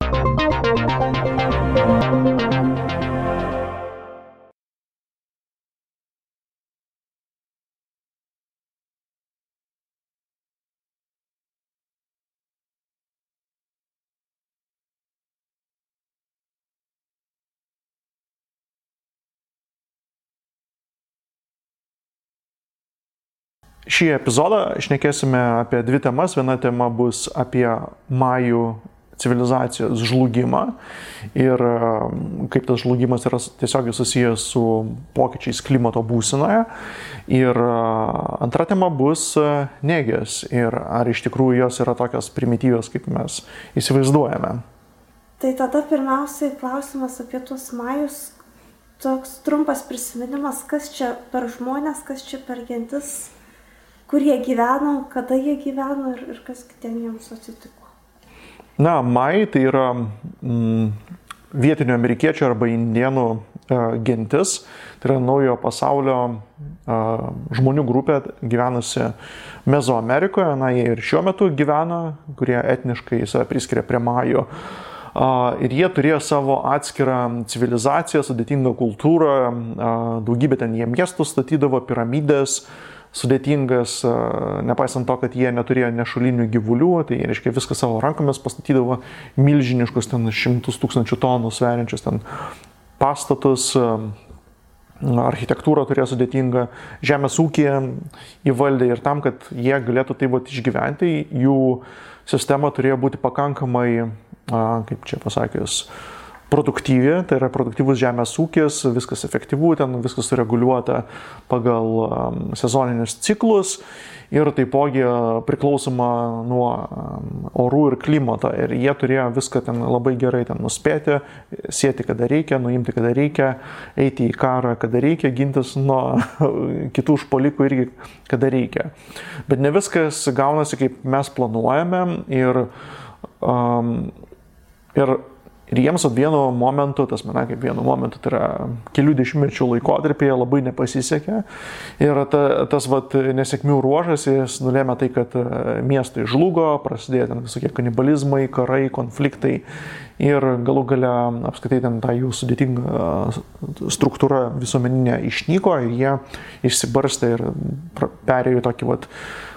Šį epizodą šnekėsime apie dvi temas. Viena tema bus apie majų civilizacijos žlugimą ir kaip tas žlugimas yra tiesiogiai susijęs su pokyčiais klimato būsenoje. Ir antra tema bus negės ir ar iš tikrųjų jos yra tokios primityvios, kaip mes įsivaizduojame. Tai tada pirmiausiai klausimas apie tuos majus. Toks trumpas prisiminimas, kas čia per žmonės, kas čia per gentis, kur jie gyveno, kada jie gyveno ir kas ten jiems atsitiko. Na, majai tai yra vietinių amerikiečių arba indienų gentis. Tai yra naujojo pasaulio žmonių grupė gyvenusi Mezoamerikoje. Na, jie ir šiuo metu gyvena, kurie etniškai save priskiria prie majų. Ir jie turėjo savo atskirą civilizaciją, sudėtingą kultūrą, daugybę ten jie miestų statydavo, piramidės, sudėtingas, nepaisant to, kad jie neturėjo nešulinių gyvulių, tai reiškia viską savo rankomis pastatydavo, milžiniškus ten 100 000 tonų sveriančius ten pastatus, architektūrą turėjo sudėtingą, žemės ūkį įvaldė ir tam, kad jie galėtų taip vat išgyventi, jų sistema turėjo būti pakankamai, kaip čia pasakius, produktyvi, tai yra produktyvus žemės ūkis, viskas efektyvu, ten viskas sureguliuota pagal sezoninius ciklus ir taipogi priklausoma nuo orų ir klimato. Ir jie turėjo viską ten labai gerai ten nuspėti, sieti kada reikia, nuimti kada reikia, eiti į karą kada reikia, gintis nuo kitų užpuolikų irgi kada reikia. Bet ne viskas gaunasi kaip mes planuojame ir jiems vienu momentu, kaip vienu momentu, tai yra kelių dešimtmečių laikotarpyje labai nepasisekė. Ir tas nesėkmių ruožas, jis nulėmė tai, kad miestai žlugo, prasidėjo ten visokie kanibalizmai, karai, konfliktai ir galų gale apskritai ten ta jų sudėtinga struktūra visuomeninė išnyko ir jie išsibarstė ir perėjo tokį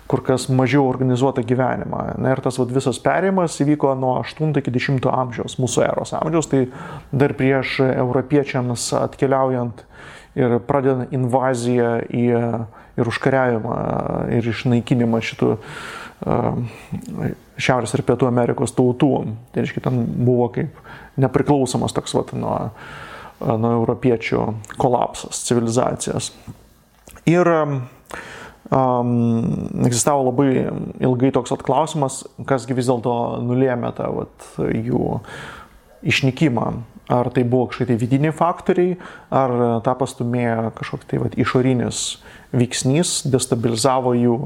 kur kas mažiau organizuotą gyvenimą. Na, ir tas visas perėjimas įvyko nuo 8 iki 10 amžiaus, mūsų eros amžiaus, tai dar prieš europiečiams atkeliaujant ir pradedant invaziją ir užkariavimą ir išnaikinimą šitų Šiaurės ir Pietų Amerikos tautų. Tai reiškia, ten buvo kaip nepriklausomas toks nuo europiečių kolapsas civilizacijos. Ir egzistavo labai ilgai toks klausimas, kasgi vis dėlto nulėmė tą jų išnykimą. Ar tai buvo kažkokie vidiniai faktoriai, ar tą pastūmėjo kažkoks išorinis veiksnys, destabilizavo jų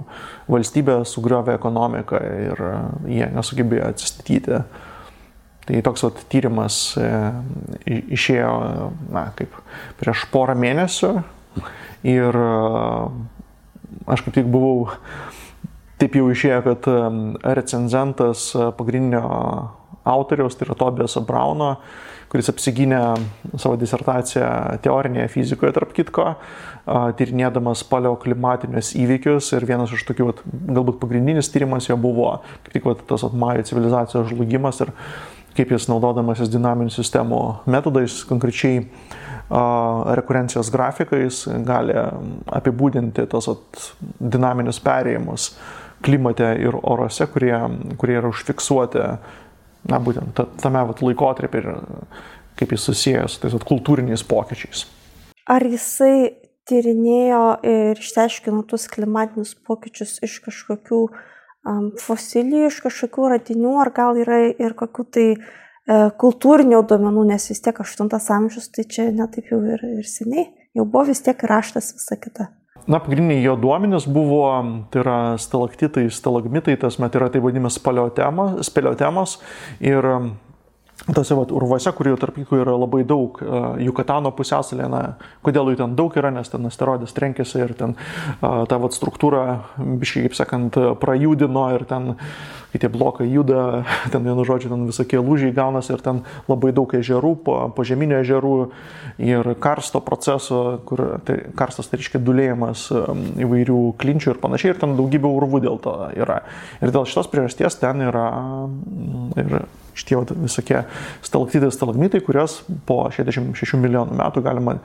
valstybę, sugriovė ekonomiką ir jie nesugebėjo atsistatyti. Tai toks tyrimas išėjo kaip prieš porą mėnesių ir aš kaip tik buvau, taip jau išėjo, kad recenzentas pagrindinio autoriaus, tai yra Tobiaso Brauno, kuris apsigynė savo disertaciją teorinėje fizikoje, tarp kitko, tyrinėdamas paleoklimatinius įvykius ir vienas iš tokių, galbūt pagrindinis tyrimas jo buvo kaip tik tas majų civilizacijos žlugimas ir kaip jis naudodamasis dinaminių sistemų metodais, konkrečiai rekurencijos grafikais, gali apibūdinti tos dinaminius perėjimus klimate ir orose, kurie yra užfiksuoti būtent tame laikotarpį ir kaip jis susijęs su tais kultūriniais pokyčiais. Ar jisai tyrinėjo ir išsiaiškino tuos klimatinius pokyčius iš kažkokių fosilijų, iš kažkokių radinių, ar gal yra ir kokių tai kultūrinių duomenų, nes vis tiek 8 amžius, tai čia netaip jau ir seniai, jau buvo vis tiek raštas visa kita. Na, pagrindiniai jo duomenys buvo, tai yra stalaktitai, stalagmitai, tai yra taip vadinamas speleotemos ir tose urvuose, kurių tarp jų yra labai daug, Jukatano pusiasalė, kodėl jų ten daug yra, nes ten asteroidas trenkėsi ir ten ta struktūra, biškai, kaip sakant, prajudino ir ten, kai tie blokai juda, ten vienu žodžiu, ten visokie lūžiai gaunasi ir ten labai daug ežerų, požeminių ežerų ir karsto proceso, kur karstas tai reiškia dulėjimas įvairių klinčių ir panašiai, ir ten daugybė urvų dėl to yra. Ir dėl šitos priežasties ten yra ir šitie visokie stalaktitai, kurios po 66 milijonų metų galima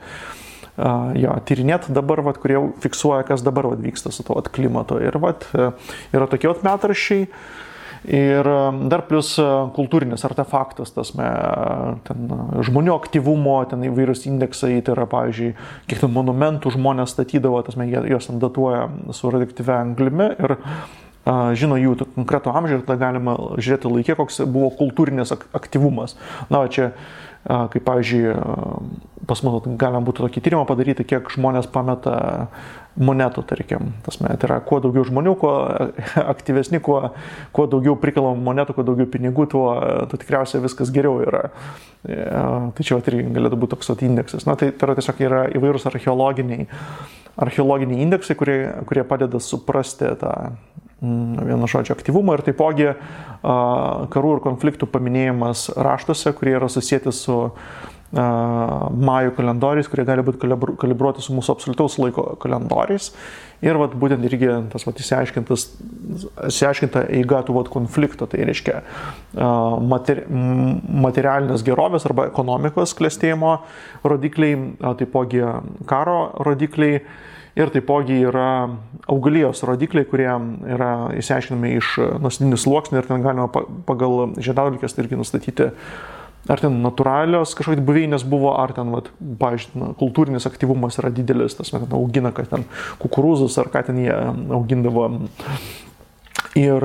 tyrinėti dabar, kurie fiksuoja, kas dabar vyksta su to klimato. Ir yra tokie metraščiai. Ir dar plus kultūrinis artefaktas, ten žmonių aktyvumo, ten įvairius indeksai, tai yra, pavyzdžiui, kiek ten monumentų žmonės statydavo, juos ten datuoja su radioaktyvia anglimi ir žino jų konkretų amžių ir tada galima žiūrėti laikė, koks buvo kultūrinis aktyvumas. Čia, kaip pavyzdžiui, pas mus galima būtų tokį tyrimą padaryti, kiek žmonės pameta monetų, tarkim. Tai yra, kuo daugiau žmonių, kuo aktyvesni, kuo daugiau prikalam monetų, kuo daugiau pinigų, tuo tikriausiai viskas geriau yra. Tai čia irgi galėtų būti toks indeksas. Tai yra tiesiog įvairūs archeologiniai indeksai, kurie padeda suprasti tą vieno žodžio aktyvumą ir taipogi karų ir konfliktų paminėjimas raštuose, kurie yra susijęti su majų kalendoriais, kurie gali būti kalibruoti su mūsų absoliutaus laiko kalendoriais. Ir būtent irgi tas išsiaiškinta eiga tų konflikto, tai reiškia materialinės gerovės arba ekonomikos klestėjimo rodikliai, taipogi karo rodikliai. Ir taipogi yra augalijos rodikliai, kurie yra išsiaiškinami iš nuosėdinių sluoksnių ir ten galima pagal žiedadulkes irgi nustatyti, ar ten natūralios kažkokios buveinės buvo, ar ten, pavyzdžiui, kultūrinis aktyvumas yra didelis, augina, kad ten kukurūzus, ar ką ten jie augindavo. Ir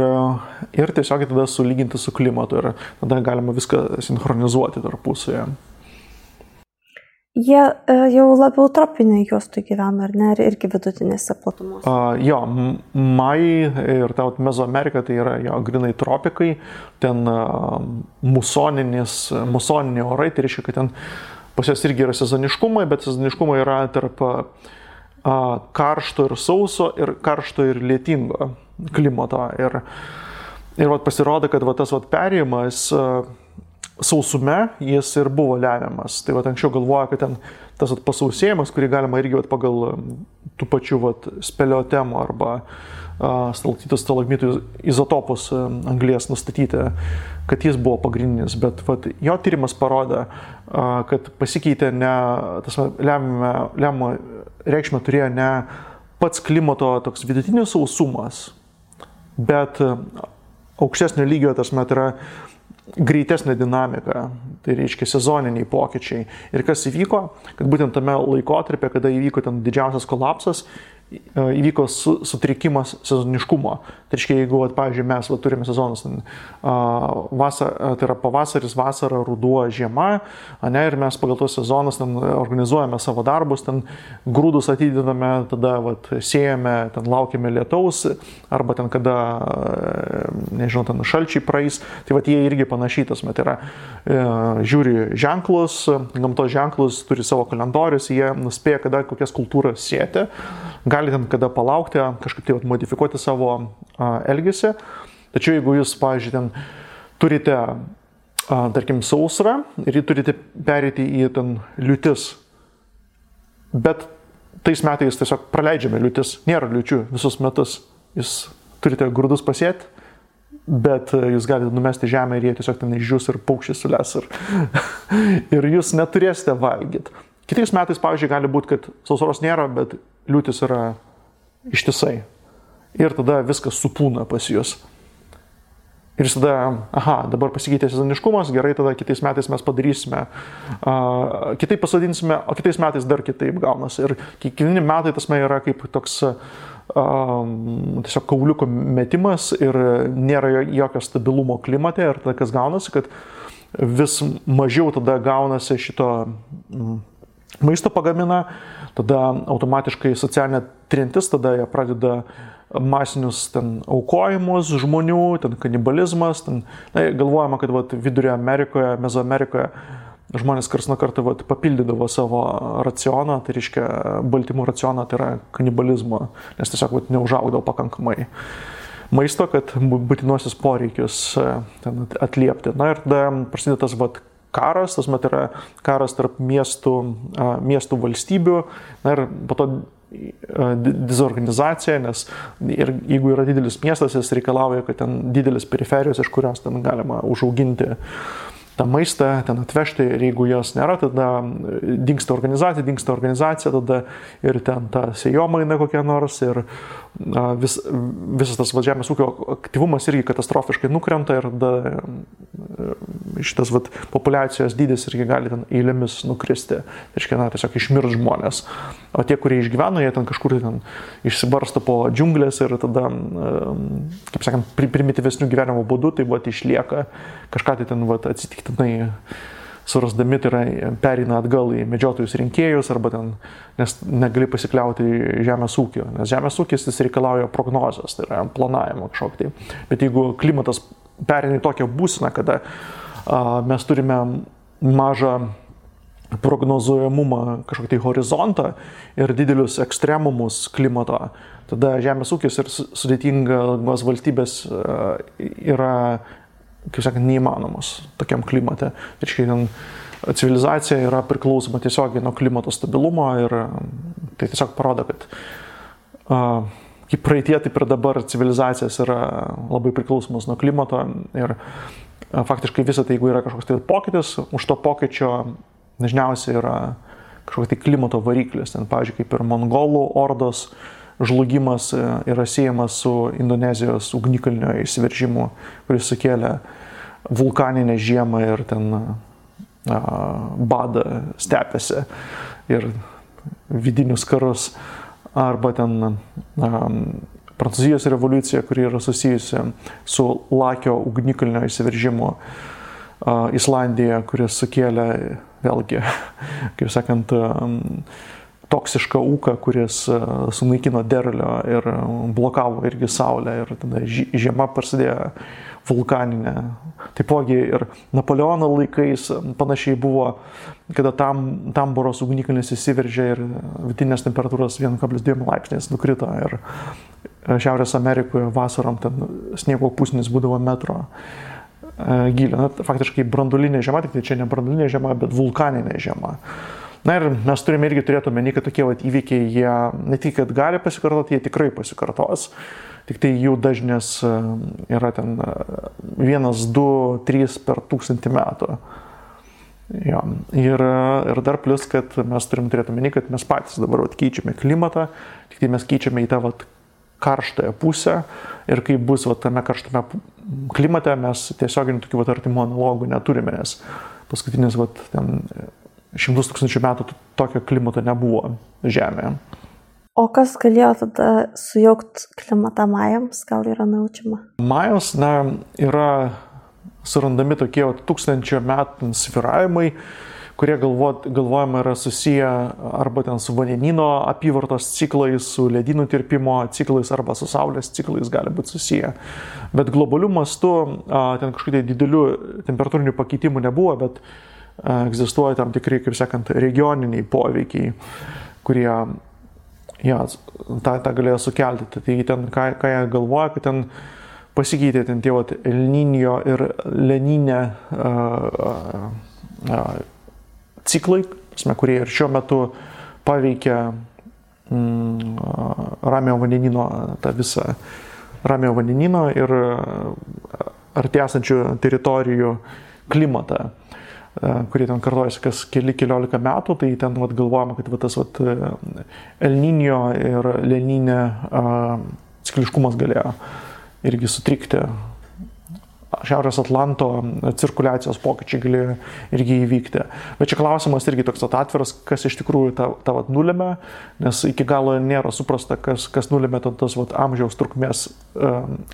tiesiog tada sulyginti su klimatu ir tada galima viską sinchronizuoti tarpusavyje. Jie jau labiau tropinėje juostoje gyvena, ar ne, ir irgi vidutinėse platumose? Majai ir ta Mezoamerika tai yra grinai tropikai, ten musoniniai orai, tai reiškia, kad ten pas jas irgi yra sezoniškumai, bet sezoniškumai yra tarp karšto ir sauso ir karšto ir lietingo klimato. Ir pasirodo, kad tas perėjimas sausume jis ir buvo lemiamas. Tai anksčiau galvoja, kad ten tas pasausėjimas, kurį galima irgi pagal tų pačių speleotemų arba stalaktitų izotopus anglies nustatyti, kad jis buvo pagrindinis. Bet jo tyrimas parodė, kad pasikeitė lemiamą reikšmę turėjo ne pats klimato toks vidutinis sausumas, bet aukštesnio lygio yra greitesnė dinamika, tai reiškia sezoniniai pokyčiai. Ir kas įvyko, kad būtent tame laikotarpė, kada įvyko ten didžiausias kolapsas, įvyko sutrikimas sezoniškumo. Tai reiškia, jeigu, pavyzdžiui, mes turime sezonus, tai yra pavasaris, vasara, ruduo, žiema, ir mes pagal tos sezonus organizuojame savo darbus, grūdus atidedame, tada sėjame, laukiame lietaus, arba kada, nežinau, šalčiai praeis. Tai jie irgi panašytas, tai yra, žiūri ženklus, gamtos ženklus, turi savo kalendorius, jie nuspėja, kada kokias kultūras sėti. Gali ten kada palaukti, kažkaip tai modifikuoti savo elgesį. Tačiau jeigu jūs, pavyzdžiui, ten turite, tarkim, sausrą ir jį turite pereiti į ten liūtis, bet tais metais tiesiog praleidžiame liūtis, nėra liūčių visus metus, jūs turite grūdus pasėti, bet jūs galite numesti žemę ir jie tiesiog ten išdžius ir paukščiai sules ir jūs neturėsite valgyti. Kitais metais, pavyzdžiui, gali būti, kad sausros nėra, bet liūtis yra ištisai. Ir tada viskas supūna pas jūs. Ir tada, dabar pasikeitė sezoniškumas, gerai, tada kitais metais mes padarysime, kitaip pasodinsime, o kitais metais dar kitaip gaunasi. Ir kiekvieni metai yra kaip toks tiesiog kauliuko metimas ir nėra jokio stabilumo klimate. Ir tada kas gaunasi, kad vis mažiau tada gaunasi šito maisto pagamina, tada automatiškai socialinė trintis, tada jie pradeda masinius ten aukojimus žmonių, ten kanibalizmas, ten, galvojama, kad vat, Vidurio Amerikoje, Mezoamerikoje žmonės karts nuo karto vat, papildydavo savo racioną, tai reiškia baltymų racioną, tai yra kanibalizmo, nes tiesiog vat, neužaugdavo pakankamai maisto, kad būtinuosius poreikius ten atliepti. Na ir tada prasideda tas vat, karas, tas met yra karas tarp miestų valstybių, na ir po to dezorganizacija, nes ir jeigu yra didelis miestas, jis reikalauja, kad ten didelis periferijos, iš kurios ten galima užauginti tą maistą, ten atvežti, ir jeigu jos nėra, tada dingsta organizacija, tada ir ten ta sėjomaina kokia nors, ir visas tas žemės ūkio aktyvumas irgi katastrofiškai nukrenta, ir tada šitas populiacijos dydis irgi gali ten eilėmis nukristi, tiesiog išmirs žmonės. O tie, kurie išgyveno, jie ten kažkur ten išsibarsto po džiunglės ir tada, kaip sakant, primityvesnių gyvenimo būdų, tai išlieka kažką tai ten atsitiktinai surasdami, tai yra pereina atgal į medžiotojus rinkėjus, arba ten, nes negali pasikliauti žemės ūkio, nes žemės ūkis jis reikalauja prognozės, tai yra planavimo kažkokį tai. Bet jeigu klimatas pereina į tokią būseną, kada mes turime mažą prognozuojamumą, kažkokį tai horizontą ir didelius ekstremumus klimato, tada žemės ūkis ir sudėtingos valstybės yra, kaip sakant, neįmanomos tokiam klimate. Reiškia, civilizacija yra priklausoma tiesiogiai nuo klimato stabilumo, ir tai tiesiog parodo, kad kaip praeitie, taip ir dabar civilizacijos yra labai priklausomos nuo klimato, ir faktiškai visą tai, jeigu yra kažkoks tai pokytis, už to pokyčio dažniausiai yra kažkoks tai klimato variklis. Ten, pavyzdžiui, kaip ir mongolų ordos žlugimas yra siejamas su Indonezijos ugnikalnio įsiveržimu, kuris sukėlė vulkaninę žiemą ir ten badą stepėse ir vidinius karus. Arba ten Prancūzijos revoliucija, kuri yra susijusi su Lakio ugnikalnio įsiveržimu Islandijoje, kuris sukėlė vėlgi, kaip sakant, toksišką ūką, kuris sunaikino derlių ir blokavo irgi saulę, ir tada žiema prasidėjo vulkaninė. Taipogi ir Napoleono laikais panašiai buvo, kada Tamboros ugnikalnis įsiveržė ir vidutinės temperatūros 1,2 laipsniais nukrito, ir Šiaurės Amerikoje vasarom ten sniego pusnis būdavo metro gylio. Na, faktiškai branduolinė žiema, tik tai čia ne branduolinė žiema, bet vulkaninė žiema. Na ir mes turime irgi turėti omeny, kad tokie įvykiai, jie ne tik, kad gali pasikartoti, jie tikrai pasikartos. Tik tai jų dažnis yra ten 1, 2, 3 per 1000 metų. Ja. Ir dar plus, kad mes turime turėti omeny, kad mes patys dabar keičiame klimatą, tik tai mes keičiame į tą karštąją pusę, ir kai bus tame karštame klimate, mes tiesioginių tokių artimų analogų neturime, nes paskutinis ten 100 000 metų tokio klimato nebuvo Žemėje. O kas galėjo tada sujaukti klimatą majams, gal yra naučiama? Majos, yra surandami tokie 1000 metų svyravimai, kurie galvojama yra susiję arba ten su vandenyno apyvartos ciklais, su ledynų tirpimo ciklais, arba su saulės ciklais gali būti susiję. Bet globaliu mastu ten kažkokių didelių temperatūrinių pakeitimų nebuvo, bet egzistuoja tam tikri, kaip sakant, regioniniai poveikiai, kurie tą galėjo sukelti. Tai ten, ką jie galvoja, kad ten pasikeitė ten tie El Niño ir La Niña ciklai, kurie ir šiuo metu paveikia Ramiojo vandenyno, tą visą Ramiojo vandenyno ir arti esančių teritorijų klimatą, kurie ten kartojasi kas keliolika metų, tai ten galvojama, kad tas El Niño ir La Niña cikliškumas galėjo irgi sutrikti. Šiaurės Atlanto cirkuliacijos pokyčiai galėjo irgi įvykti. Bet čia klausimas irgi toks atviras, kas iš tikrųjų tą nulėmė, nes iki galo nėra suprasta, kas nulėmė tas amžiaus trukmės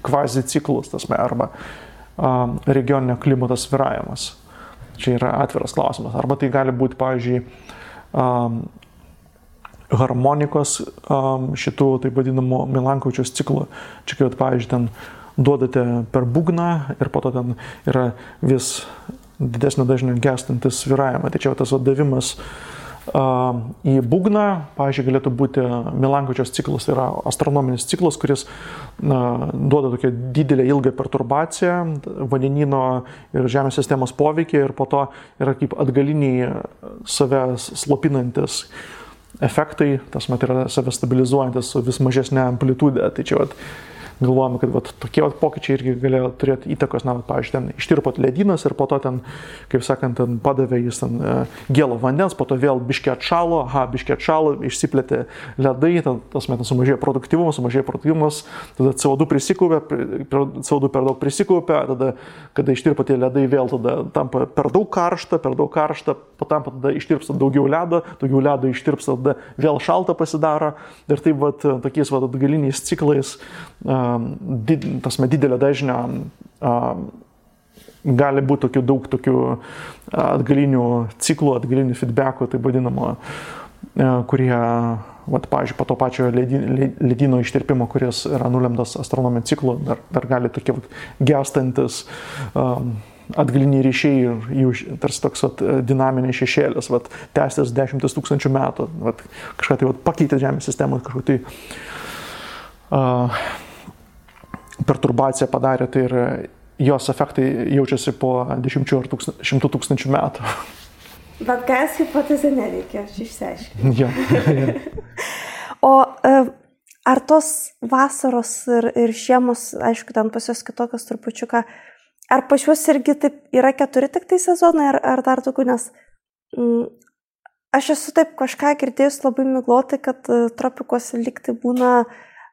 kvazi ciklus, arba regioninio klimato svyravimas. Čia yra atviras klausimas. Arba tai gali būti, pavyzdžiui, harmonikos šitų, taip vadinamų Milankovičiaus ciklų. Čia kai, pavyzdžiui, ten duodate per būgną ir po to ten yra vis didesnio dažnio gestantis svyravimą. Tai čia tas davimas į būgną, pavyzdžiui, galėtų būti Milankovičiaus ciklas, tai yra astronominis ciklas, kuris duoda tokią didelę ilgą perturbaciją vandenyno ir Žemės sistemos poveikį ir po to yra kaip atgaliniai save slopinantis efektai, tas mat yra save stabilizuojantis su vis mažesnė amplitudė. Tai čia galvojame, kad tokie pokyčiai irgi galėjo turėti įtakos, pavyzdžiui, ten ištirpot ledynas ir po to ten, kaip sakant, ten padavė jis ten gėlo vandens, po to vėl biškį atšalo, išsiplėtė ledai, tas metas sumažėjo produktyvumas, tada CO2 per daug prisikaupė, tada, kada ištirpo tie ledai, vėl tada tampa per daug karšta, patampa tada ištirpsta daugiau ledo ištirpsta, tada vėl šalta pasidaro ir taip tokiais atgaliniais ciklais didelio dažnio gali būti daug tokių atgalinių ciklų, atgalinių feedbackų, taip vadinamo, kurie, pavyzdžiui, po to pačio ledyno ištirpimo, kuris yra nulemtas astronominiu ciklu, dar gali tokie gęstantis atgaliniai ryšiai ir jų tarsi toks dinaminiai šešėlis, tęstis 10 000 metų, kažką tai pakeitė Žemės sistemą, kažką tai perturbaciją padarė, tai ir jos efektai jaučiasi po 10 ar 100 000 metų. Bet gas hipotezė nereikia, aš išsiaiškinu. Ja. O ar tos vasaros ir žiemos, aišku, ten pas jos kitokios trupučiuką, ar pas juos irgi taip yra 4 tik tai sezonai, ar dar daugiau, nes aš esu taip kažką girdėjus labai miglotai, kad tropikuose lyg tai būna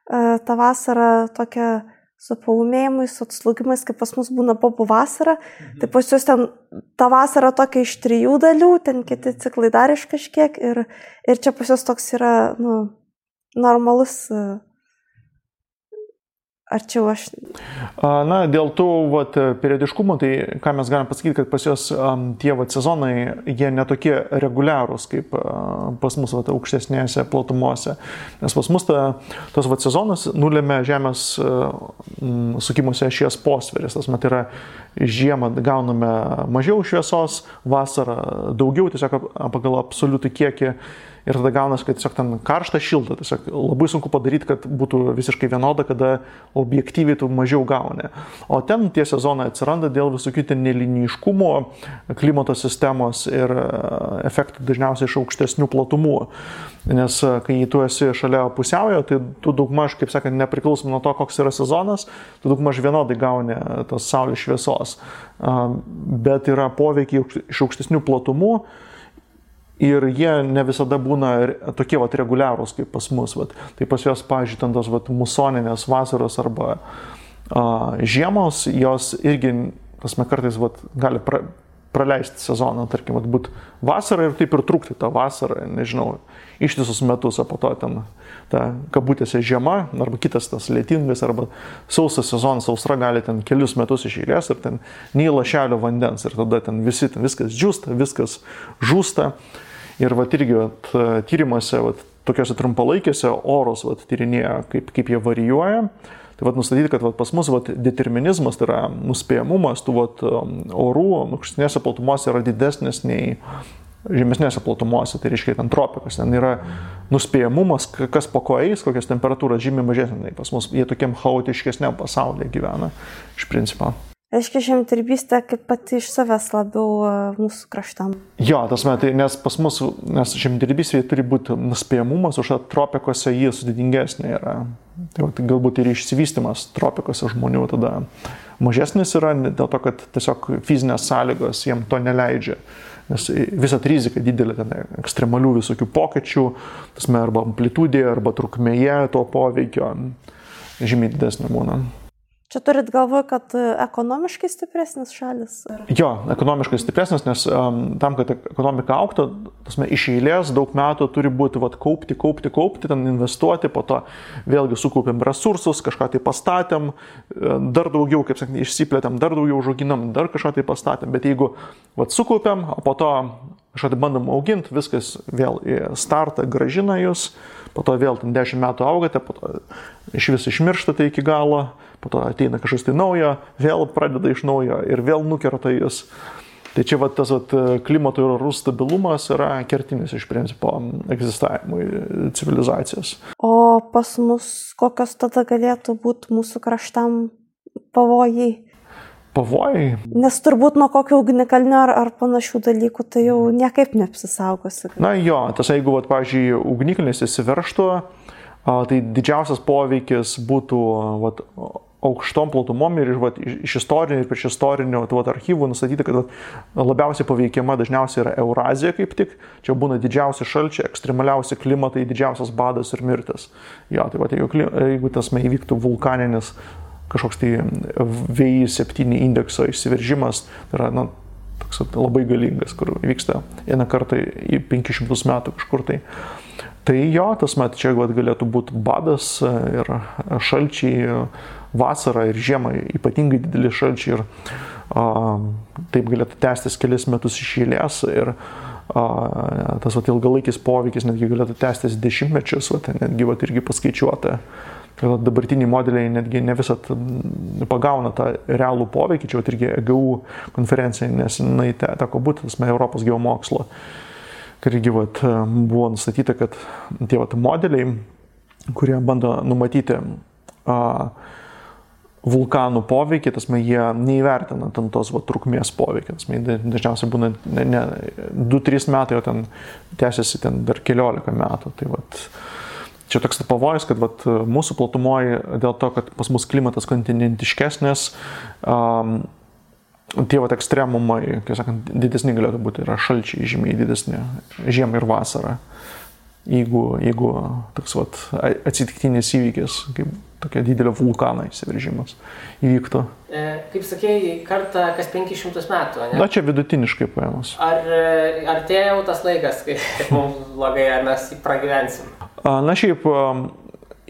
ta vasara tokia su paūmėjimais, su atslūgimais, kaip pas mus būna bobų vasara. Tai pas jūs ten ta vasara tokia iš 3 dalių, ten kiti ciklai dar iš kažkiek ir čia pas jūs toks yra normalus. Ar čia aš... Dėl tų periodiškumų, tai ką mes galim pasakyti, kad pas jos tie sezonai, jie netokie reguliarūs kaip pas mus aukštesnėse platumose. Nes pas mus tas sezonas nulėmė Žemės sukimuose ašies posveris. Tas mat yra žiemą gauname mažiau šviesos, vasarą daugiau, tiesiog pagal absoliutų kiekį. Ir tada gaunas, kad tiesiog ten karšta, šilta. Tiesiog labai sunku padaryti, kad būtų visiškai vienoda, kada objektyviai tu mažiau gauni. O ten tie sezonai atsiranda dėl visokių ten neliniškumo, klimato sistemos ir efektų dažniausiai iš aukštesnių platumų. Nes kai tu esi šalia pusiaujo, tai tu daugmaž, kaip sakant, nepriklausomai nuo to, koks yra sezonas, tu daugmaž vienodai gauni tos saulės šviesos. Bet yra poveikiai iš aukštesnių platumų. Ir jie ne visada būna tokie reguliarūs kaip pas mus. Tai pas jos, pavyzdžiui, ten tos musoninės vasaros arba žiemos, jos irgi kartais gali praleisti sezoną, tarkim, būti vasarą ir taip ir trukti tą vasarą, nežinau, ištisus metus, o po to ten ta kabutėse žiema, arba kitas tas lietingas, arba sausas sezonas, sausra gali ten kelius metus iš eilės ir ten nei lašelio vandens ir tada ten viskas džiūsta, viskas žūsta. Ir irgi tyrimuose, tokiuose trumpalaikėse orus tyrinėja, kaip jie varijuoja. Tai nustatyti, kad pas mus determinizmas, tai yra nuspėjamumas tų orų aukštesnėse platumose yra didesnis nei žemesnėse platumose, tai reiškia ten tropikos. Ten yra nuspėjamumas, kas po ko eis, kokios temperatūros žymiai mažesnė. Pas mus jie tokiam chaotiškesniam pasaulyje gyvena iš principo. Reiškia, žemdirbystė kaip pati iš savęs labiau mūsų kraštam. Jo, nes pas mus, nes žemdirbystė turi būti nuspėjamumas, už tropikose jį sudėtingesnė yra. Tai galbūt ir išsivystymas tropikose žmonių tada mažesnis yra, dėl to, kad tiesiog fizinės sąlygos jiem to neleidžia. Nes visat rizika didelė, ten ekstremalių visokių pokyčių, arba amplitudėje, arba trukmėje to poveikio žymiai didesnė būna. Čia turit galvoje, kad ekonomiškai stipresnis šalis? Ar... Jo, ekonomiškai stipresnis, nes tam, kad ekonomika auktų, iš eilės daug metų turi būti kaupti, ten investuoti, po to vėlgi sukaupėm resursus, kažką tai pastatėm, dar daugiau, kaip sakant, išsiplėtėm, dar daugiau užauginam, dar kažką tai pastatėm, bet jeigu sukaupėm, o po to kažką tai bandom auginti, viskas vėl į startą grąžina jūs, po to vėl 10 metų augate, po to iš vis išmirštate iki galo, po to ateina kažkas tai naujo, vėl pradeda iš naujo ir vėl nukerta jūs. Tai čia tas klimato ir orų stabilumas yra kertinis iš principo egzistavimui civilizacijos. O pas mus kokios tada galėtų būti mūsų kraštam pavojai? Pavojai? Nes turbūt nuo kokio ugnikalnio ar panašių dalykų tai jau niekaip neapsisaugosi. Na jo, jeigu, pavyzdžiui, ugnikalnis įsiveržtų, tai didžiausias poveikis būtų aukštom platumom ir iš istorinių ir prieš istorinių archyvų nustatyti, kad labiausiai paveikiama dažniausiai yra Eurazija kaip tik. Čia būna didžiausi šalčiai, ekstremaliausi klimatai, didžiausias badas ir mirtis. Jo, tai jeigu tas įvyktų vulkaninis kažkoks tai VI7 indekso išsiveržimas, tai yra toks labai galingas, kur vyksta vieną kartą į 500 metų kažkur tai. Tai jo, čia galėtų būti badas ir šalčiai, vasara ir žiema, ypatingai dideli šalčiai ir taip galėtų tęstis kelis metus iš eilės ir tas ilgalaikis poveikis netgi galėtų tęstis dešimtmečius, netgi irgi paskaičiuota. Dabartiniai modeliai netgi ne visat pagauna tą realų poveikį, čia irgi EGU konferencija, nes teko būti Europos geomokslo. Irgi buvo nustatyta, kad tie modeliai, kurie bando numatyti vulkanų poveikį, jie neįvertina tos trukmės poveikį. Dažniausiai būna ne 2-3 metai, o ten tęsiasi dar 15 metų. Tai čia toks pavojus, kad mūsų platumoje dėl to, kad pas mus klimatas kontinentiškesnis, tie ekstremumai, kaip sakant, didesni galėtų būti, yra šalčiai žymiai didesni, žiemą ir vasarą. Jeigu toks atsitiktinis įvykis, kaip tokia didelio vulkano įsiveržimas įvyktų. Kaip sakėjai, kartą kas 500 metų, ne? Na, čia vidutiniškai paėmus. Ar tai jau tas laikas, kai mums blogai, ar mes pragyvensim? Na, šiaip,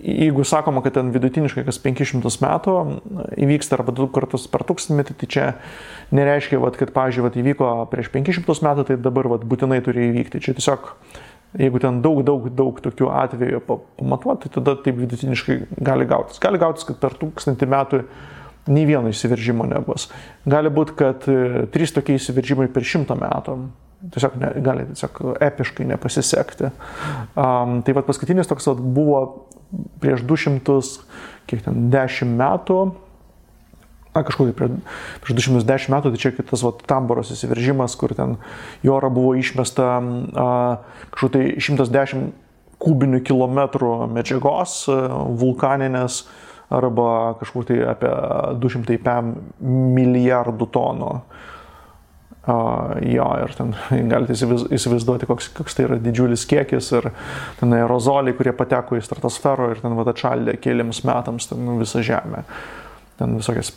jeigu sakoma, kad ten vidutiniškai kas 500 metų įvyksta arba 2 kartus per 1000 metį, tai čia nereiškia, kad, pavyzdžiui, įvyko prieš 500 metų, tai dabar būtinai turi įvykti. Čia tiesiog, jeigu ten daug tokių atvejų pamatuoti, tai tada taip vidutiniškai gali gautis. Gali gautis, kad per 1000 metų nei vieno įsiveržimo nebus. Gali būti, kad 3 tokie įsiveržimai per 100 metų. Gali epiškai nepasisekti. Tai paskutinis toks buvo prieš 210 metų, kažkur prieš 210 metų, tai čia kitas Tamboros įsiveržimas, kur ten į orą buvo išmesta kažkur tai 110 kubinių kilometrų medžiagos vulkaninės arba kažkur tai apie 205 milijardų tonų. Jo, ir ten galite įsivaizduoti, koks tai yra didžiulis kiekis ir ten aerozoliai, kurie pateko į stratosferą ir ten atšaldė keliams metams visą Žemę. Ten visokias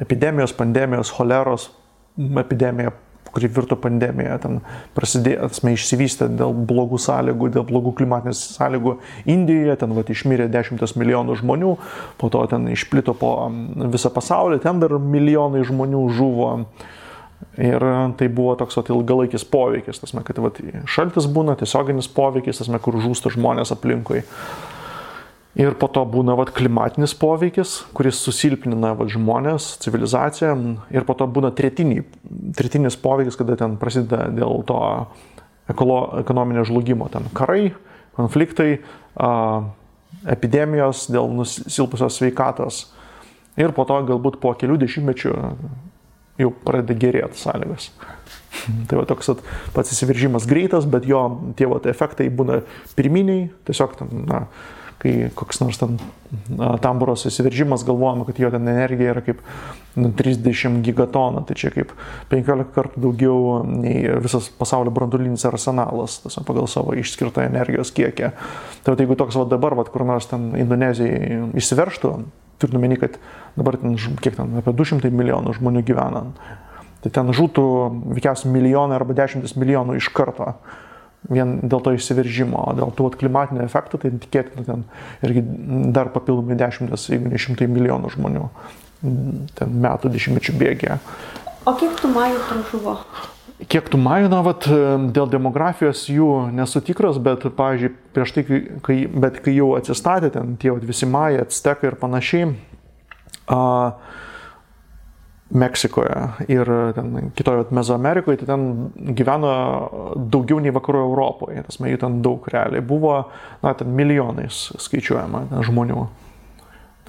epidemijos, pandemijos, choleros epidemija, kuri virto pandemija, ten prasidėjo, išsivystė dėl blogų sąlygų, dėl blogų klimatinės sąlygų Indijoje, ten išmirė 10 milijonų žmonių, po to ten išplito po visą pasaulį, ten dar milijonai žmonių žuvo. Ir tai buvo toks ilgalaikis poveikis, kad šaltis būna, tiesioginis poveikis, kur žūsta žmonės aplinkui. Ir po to būna klimatinis poveikis, kuris susilpnina žmonės, civilizaciją. Ir po to būna tretinis poveikis, kada ten prasideda dėl to ekonominio žlugimo. Ten karai, konfliktai, epidemijos dėl nusilpusios sveikatos. Ir po to galbūt po kelių dešimtmečių jau pradeda gerėti sąlygas. Tai toks pats įsiveržimas greitas, bet jo tie efektai būna pirminiai, tiesiog kai koks nors Tamboros įsiveržimas, galvojama, kad jo ten energija yra kaip 30 gigatonų, tai čia kaip 15 kartų daugiau nei visas pasaulio branduolinis arsenalas, pagal savo išskirtą energijos kiekį. Tai jeigu toks dabar, kur nors ten Indonezijai įsiveržtų, turint omeny, kad dabar ten, kiek ten, apie 200 milijonų žmonių gyvena. Tai ten žūtų veikiausiai milijonai arba 10 milijonų iš karto. Vien dėl to išsiveržimo, dėl tų klimatinių efektų, tai tikėtina ten irgi dar papildomai 10, jeigu ne 100 milijonų žmonių ten metų 10 bėgėje. O kiek tų majų pražuvo? Kiek tų majų, dėl demografijos jų nesu tikras, bet, pavyzdžiui, prieš tai, kai jau atsistatė ten tie visi majai, actekai ir panašiai, Meksikoje ir ten kitoje Mezoamerikoje, tai ten gyveno daugiau nei vakarų Europoje, tas jų ten daug realiai buvo, ten milijonais skaičiuojama ten žmonių.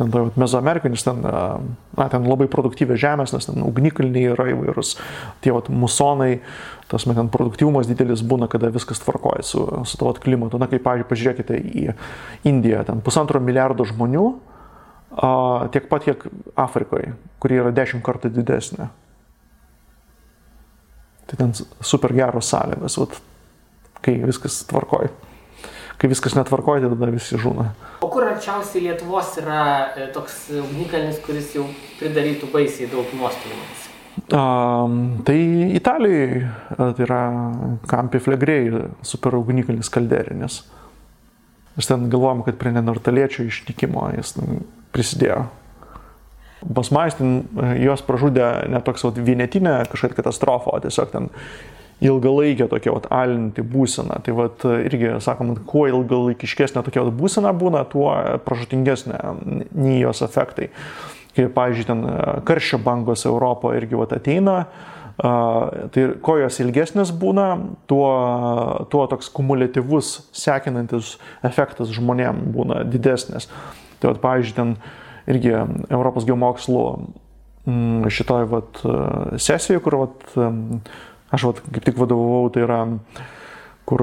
Ten Mezoamerikoje, nes ten labai produktyvė žemės, nes ten ugnikalniai yra įvairūs, tie musonai, ten produktyvumas didelis būna, kada viskas tvarkoja su to klimatu. Kaip, pavyzdžiui, pažiūrėkite į Indiją, ten 1,5 milijardo žmonių, tiek pat, kiek Afrikoje, kuri yra 10 kartų didesnė. Tai ten super geros sąlygos, kai viskas tvarkoja. Kai viskas netvarkoja, tai tada visi žūna. O kur arčiausiai Lietuvos yra toks ugnikalnis, kuris jau pridarytų baisiai daug nuostolių? Tai Italijoje tai yra Campi Flegrei super ugnikalnis kalderinis. Aš ten galvojom, kad prie neandertaliečių išnykimo jis prisidėjo. Pas majus juos pražudė ne toks vienetinė kažkokia katastrofa, o tiesiog ten ilgalaikė tokia alinti būsena. Tai irgi sakom, kuo ilgalaikiškesnė tokia būsena būna, tuo pražutingesnė nei jos efektai. Kai, pavyzdžiui, ten karščio bangos Europoje irgi ateina, tai kuo jos ilgesnės būna, tuo toks kumuliatyvus, sekinantis efektas žmonėm būna didesnis. Tai, pavyzdžiui, ten irgi Europos geomokslų šitoj sesijoje, kur aš kaip tik vadovavau, tai yra, kur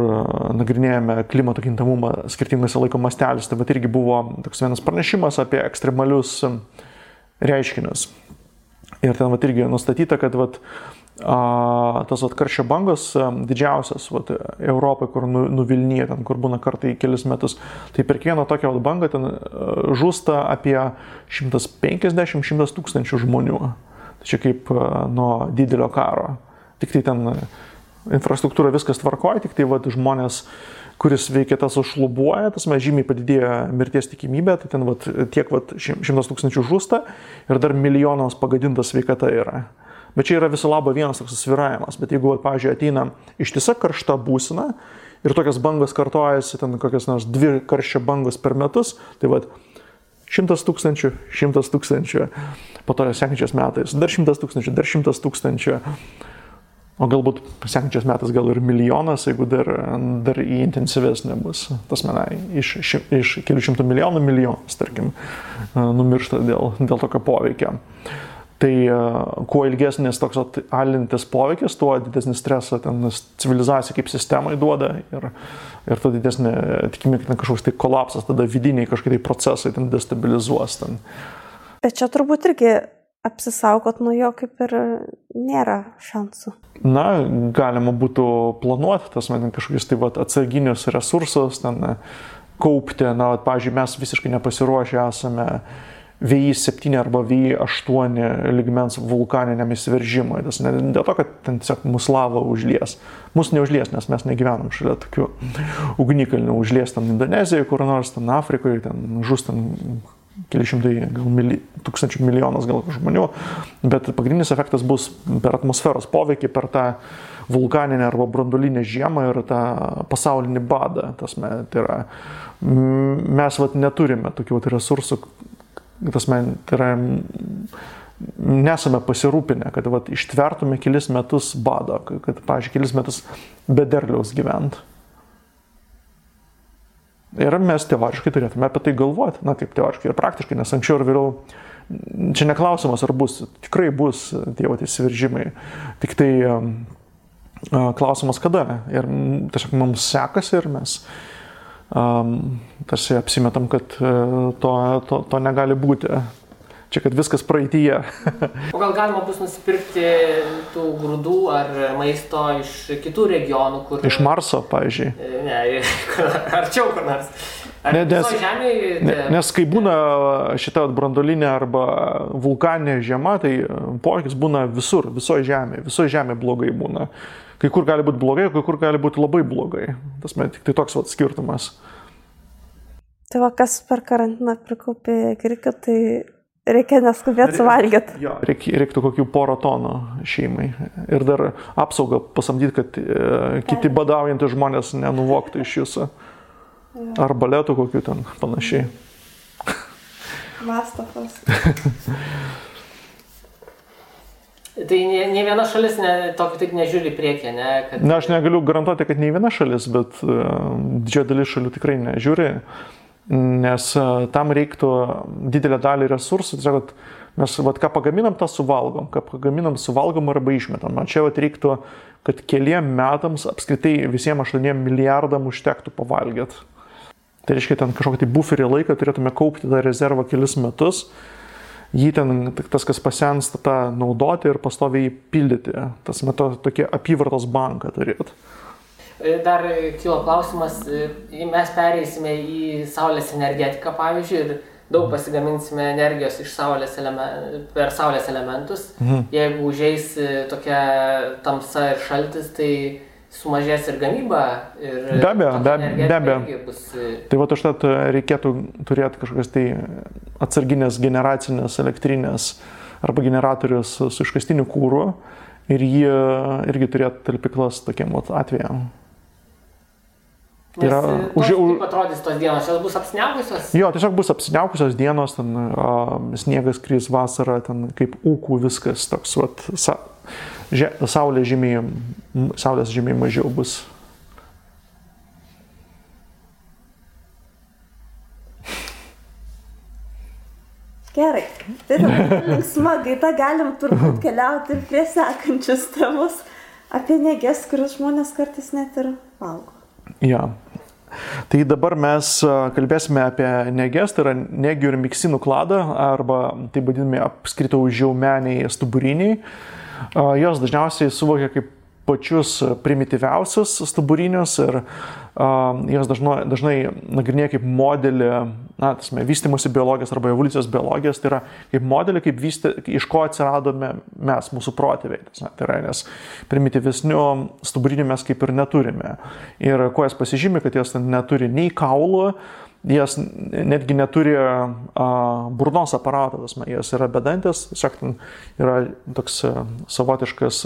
nagrinėjame klimato kintamumą skirtingose laiko masteliuose. Tai irgi buvo toks vienas pranešimas apie ekstremalius reiškinius. Ir ten irgi nustatyta, kad tas karščio bangos didžiausias Europoje, kur nuvilnyja, ten, kur būna kartai kelis metus, tai per kiekvieną tokią bangą ten žūsta apie 150-100 tūkstančių žmonių. Tai čia kaip nuo didelio karo. Tik tai ten infrastruktūra viskas tvarkoja, tik tai žmonės, kuris veikia tas užšlubuoja, tas žymiai padidėjo mirties tikimybė, tai ten tiek 100 tūkstančių žūsta ir dar milijonams pagadinta sveikata yra. Bet čia yra viso labo vienas toks sviravimas. Bet jeigu, pavyzdžiui, ateina ištisa karšta būsena ir tokias bangos kartojasi, ten kokias nors 2 karščio bangos per metus, tai 100 tūkstančių, 100 tūkstančių, po to sekančiais metais dar 100 tūkstančių, dar 100 tūkstančių, o galbūt sekančiais metais gal ir milijonas, jeigu dar į intensyvesnė bus. Tas iš kelių šimtų milijonų milijonas, tarkim, numiršta dėl tokio poveikio. Tai kuo ilgesnis toks alintis poveikis, tuo didesnį stresą ten civilizacija kaip sistemai duoda ir tuo didesnė tikimybė, kad kažkoks tai kolapsas, tada vidiniai kažkokie procesai ten destabilizuos. Ten. Bet čia turbūt irgi apsisaugot nuo jo kaip ir nėra šansų. Na, galima būtų planuoti kažkokius tai atsarginius resursus, ten kaupti. Na, pavyzdžiui, mes visiškai nepasiruošę esame VI7 arba VI8 lygmens vulkaniniam įsiveržimui. Dėl to, kad ten tiesiog mus lava užlies. Mus neužlies, nes mes negyvenam šalia tokių ugnikalnių. Užlies ten Indonezijoje, kur nors ten Afrikoje, ten žus ten keli šimtai, gal tūkstančių milijonas gal žmonių. Bet pagrindinis efektas bus per atmosferos poveikį, per tą vulkaninę arba branduolinę žiemą ir tą pasaulinį badą. Tai yra, mes neturime tokių resursų, tai yra, nesame pasirūpinę, kad ištvertume kelis metus bado, kad, pavyzdžiui, kelis metus be derliaus gyvent. Ir mes teoriškai turėtume apie tai galvoti, kaip teoriškai ir praktiškai, nes anksčiau ir vėliau, čia neklausimas ar bus, tikrai bus tie įsiveržimai, tik tai klausimas kada. Ir tiesiog mums sekasi ir mes tarsi apsimetam, kad to negali būti. Čia, kad viskas praeityje. O gal galima bus nusipirkti tų grūdų ar maisto iš kitų regionų, kur... Iš Marso, pavyzdžiui. Ne, arčiau kur nors. Nes kai būna šita branduolinė arba vulkaninė žiema, tai poveikis būna visur, visoje žemėje blogai būna. Kai kur gali būti blogai, kai kur gali būti labai blogai. Tas tik tai toks skirtumas. Tai va, kas per karantiną prikaupė grikių, tai reikia neskubėti suvalgyti. Jo, reiktų kokių 100 tonų šeimai. Ir dar apsaugą pasamdyti, kad kiti badaujantys žmonės nenuvoktų iš jūsų. Ar baletų kokių ten panašiai. Mastafas. Tai ne viena šalis taip nežiūri priekį, ne? Na, aš negaliu garantuoti, kad ne viena šalis, bet didžioji dalis šalių tikrai nežiūri, nes tam reiktų didelę dalį resursų. Tiesiog, kad mes ką pagaminam, tą suvalgom. Ką pagaminam, suvalgom arba išmetam. Čia reiktų, kad keliem metams apskritai visiems 8 milijardam užtektų pavalgyti. Tai reiškia, ten kažkokį buferį laiką turėtume kaupti tą rezervą kelis metus, jį ten, tas, kas pasensta, tą naudoti ir pastoviai pildyti. Tas metu tokie apyvartos banką turėtų. Dar kilo klausimas, mes pereisime į saulės energetiką, pavyzdžiui, ir daug pasigaminsime energijos iš per saulės elementus. Jeigu užeis tokia tamsa ir šaltis, tai sumažės ir gamyba. Ir be abejo. Tai va, užtat reikėtų turėti kažkokias tai atsarginės generacinės elektrinės arba generatorius su iškastiniu kūru ir jie irgi turėtų talpyklas tokiem atvejam. Kaip atrodys tos dienos? Jos bus apsiniaukusios? Jo, tiesiog bus apsiniaukusios dienos, ten sniegas kris vasarą, ten kaip ūkų viskas toks, saulės žymiai mažiau bus. Gerai, tai linksma gaida, galim turbūt keliauti ir prie sekančius temus apie neges, kurias žmonės kartais net ir valgo. Ja. Tai dabar mes kalbėsime apie neges, tai yra negių ir miksinų kladą, arba taip vadinami apskritai žiaumeniai stuburiniai. Jos dažniausiai suvokia kaip pačius primityviausius stuburinius ir jos dažnai nagrinėja kaip modelį, vystymosi biologijos arba evoliucijos biologijos, tai yra kaip modelį, iš ko atsiradome mes, mūsų protėviai. Tai yra, nes primityvesnių stuburinių mes kaip ir neturime. Ir kuo jas pasižymi, kad jos neturi nei kaulų, jas netgi neturi burnos aparatą, jos yra bedantės, tiesiog yra toks savotiškas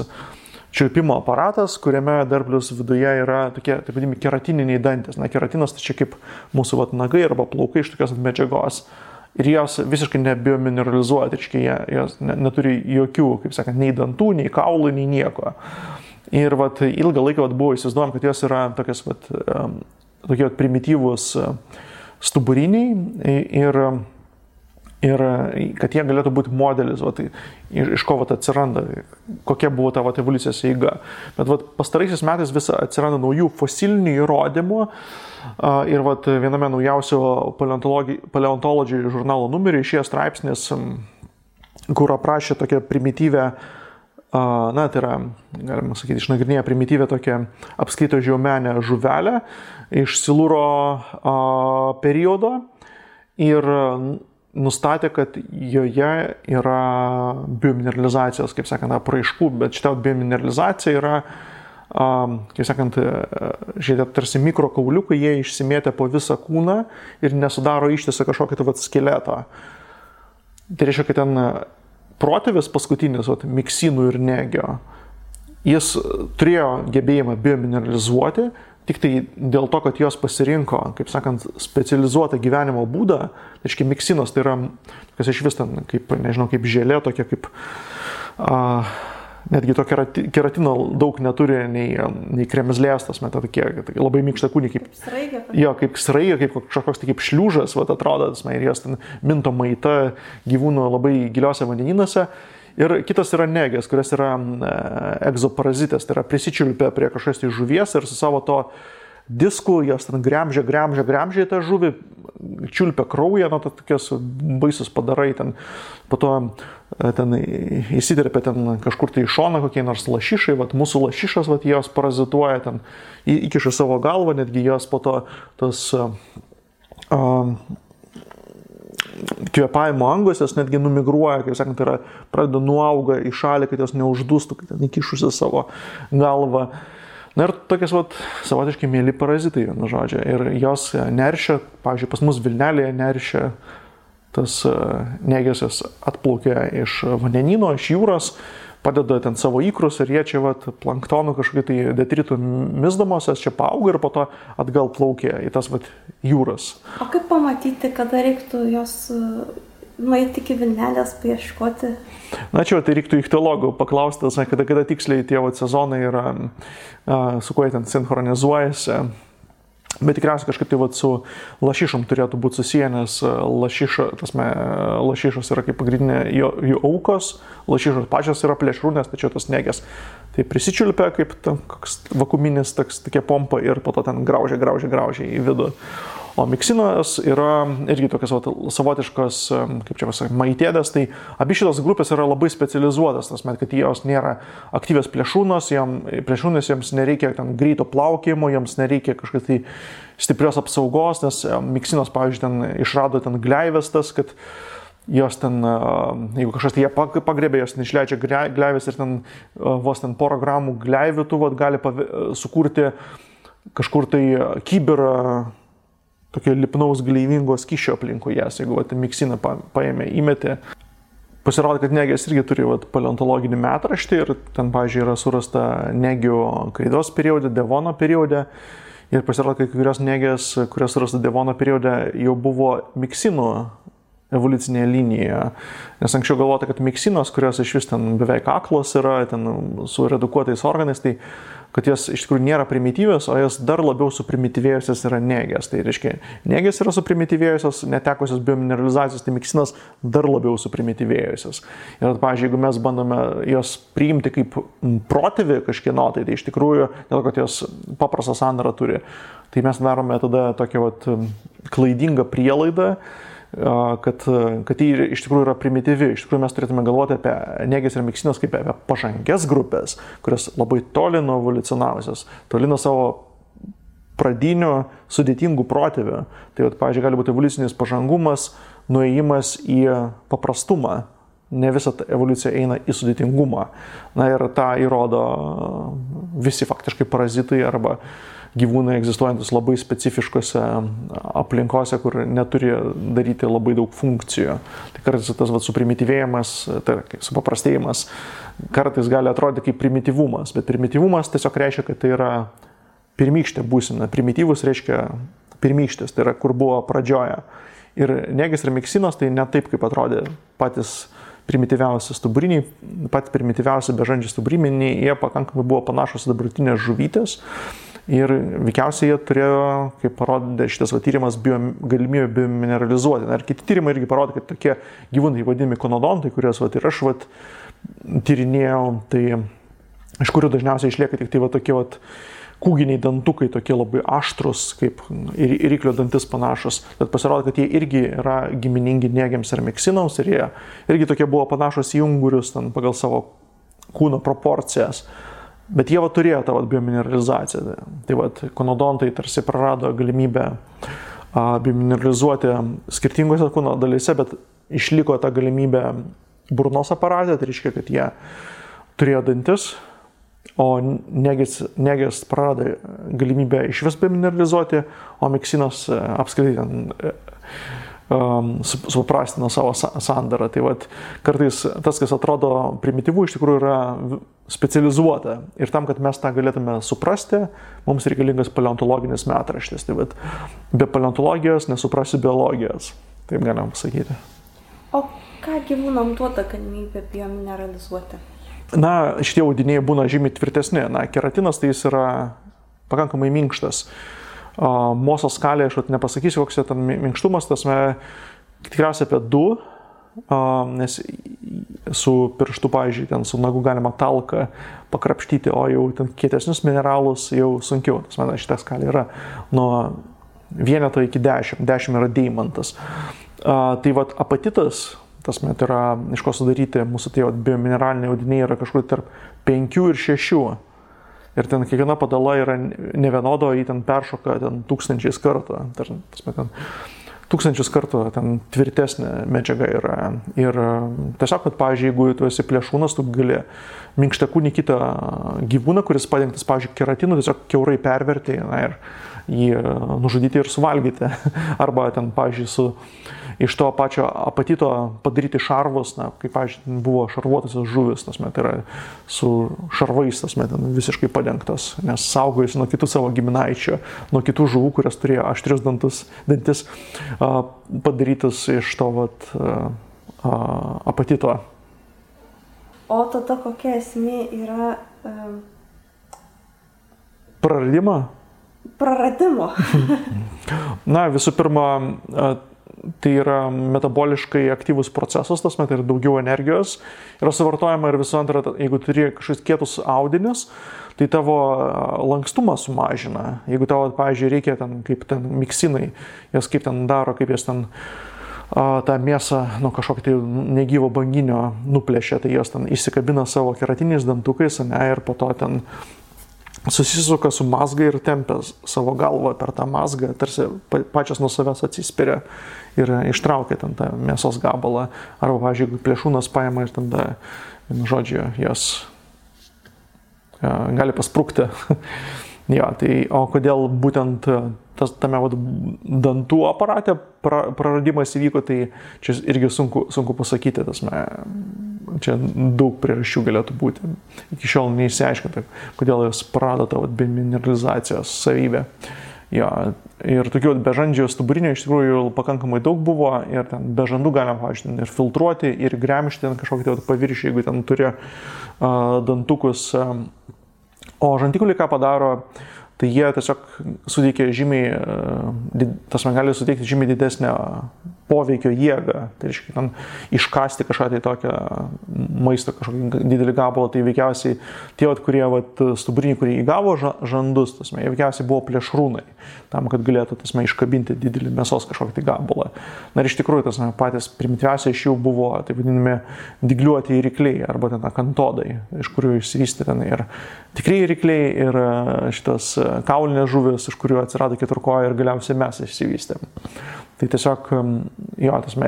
čiulpimo aparatas, kuriame dar plius viduje yra tokie, taip vadinami, keratininiai dantys. Keratinas tai čia kaip mūsų nagai arba plaukai iš tokios medžiagos. Ir jos visiškai nebiomineralizuoja, tai jos neturi jokių, kaip sakant, nei dantų, nei kaulų, nei nieko. Ir ilgą laiką buvo įsivaizduojama, kad jos yra tokie primityvūs stuburiniai ir kad jie galėtų būti modelis, iš ko atsiranda, kokia buvo ta evoliucijos eiga. Bet pastaraisiais metais vis atsiranda naujų fosilinių įrodymų ir viename naujausio Paleontology žurnalo numerį išėjo straipsnis, kur aprašė tokią primityvę, tai yra, galima sakyti, išnagrinėję primityvę tokią apskrito žiaumenę žuvelę iš Silūro periodo ir nustatė, kad joje yra biomineralizacijos, kaip sakant, apraiškų, bet šitą biomineralizacija yra, kaip sakant, šitie tarsi mikrokauliukai, jie išsimėtė po visą kūną ir nesudaro ištisą kažkokį skeletą. Tai reiškia, kad ten protėvis paskutinis, miksinų ir negio, jis turėjo gebėjimą biomineralizuoti, tik tai dėl to, kad jos pasirinko, kaip sakant, specializuotą gyvenimo būdą, tai reiškia miksinos, tai yra, kas iš vis ten, kaip, nežinau, kaip želė, tokia kaip, netgi to keratino daug neturi, nei kremzlės, tas metai tokie, labai mykšta kūnį, kaip sraigė, kaip kažkoks kaip šliūžas, atrodo, ir jos ten minto maita gyvūnų labai giliuose vandenynuose. Ir kitas yra negės, kurios yra egzoparazitės, tai yra prisičiulpia prie kažkokios tai žuvies ir su savo to disku jos ten gremžia tą žuvį, čiulpia kraują, tokios baisus padarai, ten, po to ten įsiterpia ten kažkur tai į šoną kokie nors lašišai, mūsų lašišas, jos parazituoja, ten įkiša savo galvą, netgi jos po to tos kvėpavimo angos, jos netgi numigruoja, kaip sakant, tai yra pradeda nuauga į šalį, kad jos neuždūstų, kad ten įkišusi savo galvą. Na ir tokias savotiškai mėly parazitai, vienu žodžiu. Ir jos neršia, pavyzdžiui, pas mus Vilnelėje neršia, tas negės atplaukia iš vandenyno, iš jūros, padeda ten savo ikrus ir jie čia planktonų kažkokį tai detritų misdamosios, čia paauga ir po to atgal plaukia į tas jūras. O kaip pamatyti, kada reiktų jos nueiti iki Vilnelės paieškoti? Na čia tai reiktų ichtiologų paklausti, kada tiksliai tie sezonai yra, su kuo jie ten sinchronizuojasi. Bet tikriausiai kažkaip tai su lašišom turėtų būti susiję, nes lašišos yra kaip pagrindinė jų aukos, lašišos pačios yra plėšrūnės, tačiau tos negės tai prisičiulpia kaip koks vakuuminis tokia pompa ir po to ten graužia į vidų. O miksinas yra irgi tokios savotiškos, kaip čia pasakyti, maitėdės, tai abi šitos grupės yra labai specializuotas, kad jos nėra aktyvios plėšrūnės, jiems nereikia ten greito plaukimo, jiems nereikia kažkokios tai stiprios apsaugos, nes miksinos, pavyzdžiui, ten išrado ten gleivės tas, kad jos ten, jeigu kažkas tai jie pagrebė, jos neišleidžia gleivės ir ten vos ten porą gramų gleivių tų gali sukurti kažkur tai kibirą tokio lipnaus gleivingo skysčio aplinkui jas, jeigu miksiną paėmė, įmetė. Pasirodo, kad negės irgi turi paleontologinį metraštį ir ten, pavyzdžiui, yra surasta negių kreidos periode, Devono periode. Ir pasirodo, kad kai kurios negės, kurios surasta Devono periode, jau buvo miksinų evoliucinėje linijoje. Nes anksčiau galvota, kad miksinos, kurios iš vis ten beveik aklos yra, ten su redukuotais organais, tai kad jos iš tikrųjų nėra primityvios, o jos dar labiau suprimityvėjusios yra negės. Tai reiškia, negės yra suprimityvėjusios, netekusios biomineralizacijos, tai miksinos dar labiau suprimityvėjusios. Ir, pavyzdžiui, jeigu mes bandome jos priimti kaip protėvį kažkieno, tai iš tikrųjų, dėl kad jos paprastą sandarą turi, tai mes darome tada tokią klaidingą prielaidą, kad jį iš tikrųjų yra primityvi. Iš tikrųjų mes turėtume galvoti apie negės ir miksinas kaip apie pažangias grupės, kurios labai toli nuo evoliucionavusios, toli nuo savo pradinių sudėtingų protėvių. Tai, pavyzdžiui, gali būti evoliucinis pažangumas, nuėjimas į paprastumą. Ne visa evoliucija eina į sudėtingumą. Na ir tą įrodo visi faktiškai parazitai arba gyvūnai egzistuojantis labai specifiškose aplinkose, kur neturi daryti labai daug funkcijų. Tai kartais tas suprimityvėjimas, tai supaprastėjimas, kartais gali atrodyti kaip primityvumas, bet primityvumas tiesiog reiškia, kad tai yra pirmykštė būsena. Primityvus reiškia pirmykštės, tai yra kur buvo pradžioje. Ir negės ir miksinos tai ne taip, kaip atrodė patys primityviausi stuburiniai, patys primityviausi bežandžiai stuburiniai, jie pakankamai buvo panašus į dabartinės žuvytės. Ir veikiausiai jie turėjo, kaip parodė šitas tyrimas, galimybę biomineralizuoti. Ir kiti tyrimai irgi parodė, kad tokie gyvūnai vadinami konodontai, kuriuos ir aš tyrinėjau, tai iš kurių dažniausiai išlieka tik tai tokie kūginiai dantukai, tokie labai aštrus, kaip iriklio dantis panašus. Bet pasirodo, kad jie irgi yra giminingi negėms ir miksinams ir jie irgi tokie buvo panašus į ungurius pagal savo kūno proporcijas. Bet jie turėjo tą biomineralizaciją. Tai konodontai tarsi prarado galimybę biomineralizuoti skirtingose kūno dalyse, bet išliko ta galimybė burnos aparate, tai reiškia, kad jie turėjo dantis, o negės prarado galimybę iš vis biomineralizuoti, o miksinos apskritai suprastino savo sandarą. Tai kartais tas, kas atrodo primityvų, iš tikrųjų yra specializuota. Ir tam, kad mes tą galėtume suprasti, mums reikalingas paleontologinis metraštis. Tai be paleontologijos nesuprasi biologijos. Taip galim pasakyti. O ką gyvūnam duoda galimybę biomineralizuoti? Na, šitie audiniai būna žymiai tvirtesni. Na, keratinas tai jis yra pakankamai minkštas. Mosos skalė, aš nepasakysiu, koks ten minkštumas, tikriausiai apie 2, nes su pirštu, pavyzdžiui, ten su nagu galima talką pakrapštyti, o jau ten kietesnius mineralus jau sunkiau. Šitą skalę yra nuo 1 iki 10, 10 yra deimantas. Tai apatitas, tai yra, iš ko sudaryti mūsų tie biomineraliniai audiniai yra kažkur tarp 5 ir 6. Ir ten kiekviena padala yra nevienodo, jį ten peršoka ten tūkstančiais kartų. tūkstančius kartų ten tvirtesnė medžiaga yra. Ir tiesiog, kad, pavyzdžiui, jeigu tu esi plėšrūnas, tu gali minkštakūnį kitą gyvūną, kuris padengtas, pavyzdžiui, keratinu, tiesiog kiaurai perverti ir jį nužudyti ir suvalgyti. Arba ten, pavyzdžiui, iš to pačio apatito padaryti šarvus, kaip, pavyzdžiui, buvo šarvuotasios žuvis, tai yra su šarvais, ten visiškai padengtas, nes saugojasi nuo kitų savo giminaičių, nuo kitų žuvų, kurias turėjo aštrius dantis, padarytas iš to apatito. O tada kokia esmė yra praradimo? Na, visų pirma, tai yra metaboliškai aktyvus procesas, tas met ir daugiau energijos yra suvartojama ir visų antra, jeigu turi kažkokius kietus audinius, tai tavo lankstumą sumažina. Jeigu tavo, pavyzdžiui, reikia ten, kaip ten miksinai, jas kaip ten daro, kaip jas ten tą mėsą nuo kažkokio tai negyvo banginio nuplėšia, tai jos ten įsikabina savo keratiniais dantukais, ir po to ten susisuka su mazga ir tempia savo galvą per tą mazgą, tarsi pačios nuo savęs atsispiria ir ištraukia ten tą mėsos gabalą. Arba, pavyzdžiui, jeigu plėšrūnas paima ir tada, žodžiu, jos gali pasprukti. O kodėl būtent tame dantų aparate praradimas įvyko, tai čia irgi sunku pasakyti. Čia daug priežasčių galėtų būti. Iki šiol neįsiaiškinta, kodėl jos prarado tą bemineralizacijos savybę. Ir tokių bežandžių stuburinio iš tikrųjų pakankamai daug buvo ir ten bežandų galima, pavyzdžiui, ir filtruoti, ir gremžti ten kažkokį paviršių, jeigu ten turi dantukus. O žandikauliai ką padaro, tai jie tiesiog suteikia gali suteikti žymiai didesnę poveikio jėgą. Tai reiškia, ten iškasti kažką tai tokią maistą, kažkokį didelį gabalą, tai veikiausiai tie, kurie stuburiniai, kurie įgavo žandus, jie veikiausiai buvo plėšrūnai, tam, kad galėtų iškabinti didelį mėsos kažkokį tai gabalą. Na ir iš tikrųjų, patys primityviausiai iš jų buvo, taip vadinami, dygliuoti rykliai arba ten akantodai, iš kurių išsivystė ten ir tikrieji rykliai ir šitas kaulinės žuvis, iš kurių atsirado keturkoja ir galiausiai mes išsivystėm. Tai tiesiog,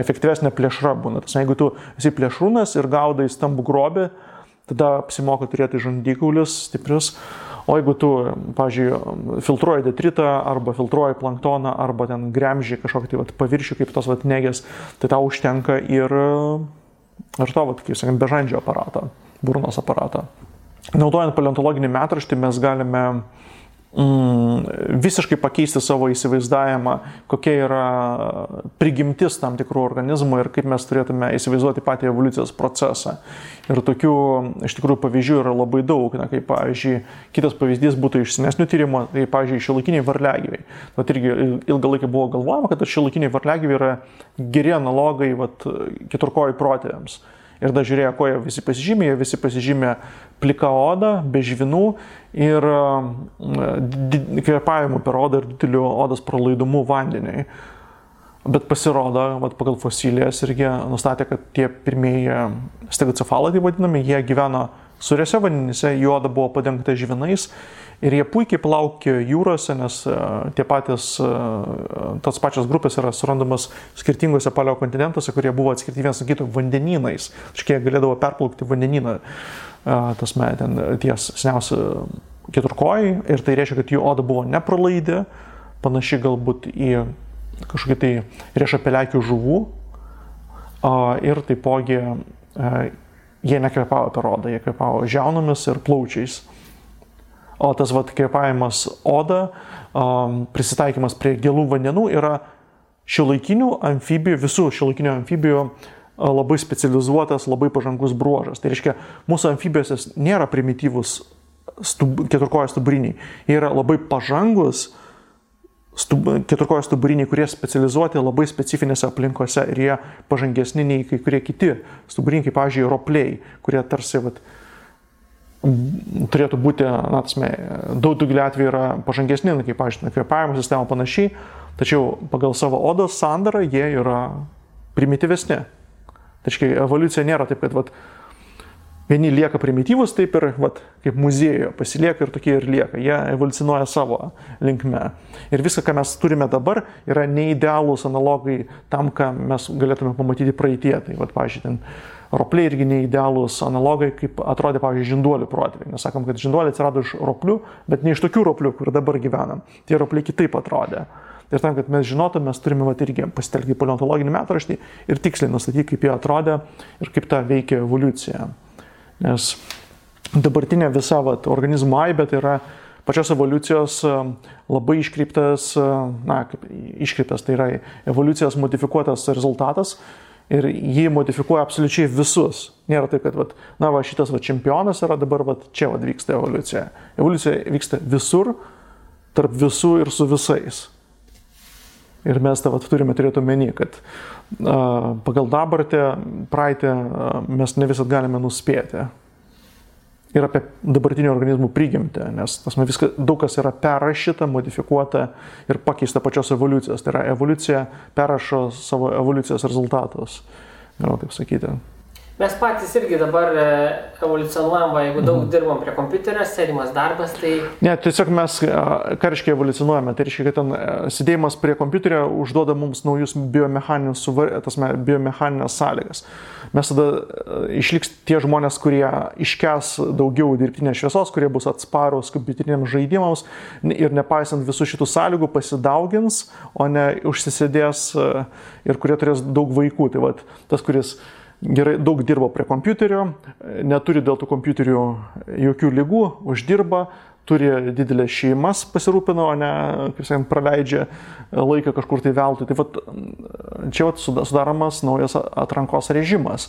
efektyvesnė plėšra būna. Jeigu tu esi plėšrūnas ir gaudai stambų grobį, tada apsimoka turėti žandikaulius stiprius. O jeigu tu, pavyzdžiui, filtruoji detritą arba filtruoji planktoną arba ten gremži kažkokį tai paviršių kaip tos negės, tai tau užtenka ir to, kaip sakant, bežandžio aparatą, burnos aparatą. Naudojant paleontologinį metraštį mes galime visiškai pakeisti savo įsivaizdavimą, kokia yra prigimtis tam tikrų organizmų ir kaip mes turėtume įsivaizduoti patį evoliucijos procesą. Ir tokių iš tikrųjų pavyzdžių yra labai daug. Kaip, pavyzdžiui, kitas pavyzdys būtų iš senesnių tyrimų, tai, pavyzdžiui, šiuolaikiniai varliagyviai. Irgi ilgą laiką buvo galvojama, kad šiuolaikiniai varliagyviai yra geri analogai keturkojų protėviams. Ir dar žiūrėjo, ko jie visi pasižymė plika oda, be žvinų ir kvėpavimu per odą ir dideliu odos pralaidumu vandeniui. Bet pasirodo, pagal fosilijas irgi nustatė, kad tie pirmieji stegocefalai, tai vadinami, jie gyveno sūriuose vandenyse, jų oda buvo padengta žvinais ir jie puikiai plaukė jūrose, nes tos pačios grupės yra surandamas skirtingose paleokontinentuose, kurie buvo atskirti vienas nuo kito vandenynais. Štai jie galėdavo perplaukti vandenyną, ties seniausi keturkojai, ir tai reiškia, kad jų oda buvo nepralaidi, panaši galbūt į kažkokį tai riešapeliakių žuvų, ir taipogi jie nekvėpavo per odą, jie kvėpavo žiaunomis ir plaučiais. O tas kvėpavimas oda, prisitaikymas prie gilų vandenų yra visų šiuolaikinių amfibijų labai specializuotas, labai pažangus bruožas. Tai reiškia, mūsų amfibijose nėra primityvus keturkojai stuburiniai. Jie yra labai pažangus keturkojai stuburiniai, kurie specializuoti labai specifinėse aplinkose ir jie pažangesni nei kai kurie kiti stuburiniai, kaip, pavyzdžiui, ropliai, kurie tarsi turėtų būti, daugeliu atveju yra pažangesni, kaip, pavyzdžiui, kvėpavimo sistema panašiai, tačiau pagal savo odos sandarą jie yra primityvesni. Tačiau evoliucija nėra taip, kad vieni lieka primityvus, taip ir kaip muziejuje pasilieka ir tokie ir lieka. Jie evoliucionuoja savo linkme. Ir viską, ką mes turime dabar, yra neidealūs analogai tam, ką mes galėtume pamatyti praeitie. Tai, pavyzdžiui, ten ropliai irgi neidealūs analogai, kaip atrodė, pavyzdžiui, žinduolių protėviai. Nes sakom, kad žinduoliai atsirado iš roplių, bet ne iš tokių roplių, kur dabar gyvenam. Tie ropliai kitaip atrodė. Ir tam, kad mes žinotume, mes turime irgi pasitelkti paleontologinį metraštį ir tiksliai nustatyti, kaip jie atrodė ir kaip ta veikia evoliucija. Nes dabartinė visa organizmų aibė tai yra pačios evoliucijos labai iškreiptas, tai yra evoliucijos modifikuotas rezultatas ir jį modifikuoja absoliučiai visus. Nėra taip, kad šitas čempionas yra dabar čia vyksta evoliucija. Evoliucija vyksta visur, tarp visų ir su visais. Ir mes tą turime turėti omeny, kad pagal dabartį, praeitį mes ne visat galime nuspėti. Ir apie dabartinių organizmų prigimtį, nes daug kas yra perrašyta, modifikuota ir pakeista pačios evoliucijos. Tai yra evoliucija perrašo savo evoliucijos rezultatus, galima taip sakyti. Mes patys irgi dabar evoliucionuojam, jeigu daug dirbam prie kompiuterio, sėdimas darbas, tai... Ne, tiesiog mes, ką reiškia evoliucionuojame, tai reiškia, kad ten sėdėjimas prie kompiuterio užduoda mums naujus biomechaninės sąlygas. Mes tada išliks tie žmonės, kurie iškęs daugiau dirbtinės šviesos, kurie bus atsparūs kompiuteriniams žaidimams ir nepaisant visų šitų sąlygų pasidaugins, o ne užsisėdės ir kurie turės daug vaikų. Tai tas, kuris gerai daug dirbo prie kompiuterio, neturi dėl tų kompiuterių jokių ligų, uždirba, turi didelės šeimas pasirūpina, o ne, kaip sakant, praleidžia laiką kažkur tai veltui. Tai čia sudaromas naujas atrankos režimas.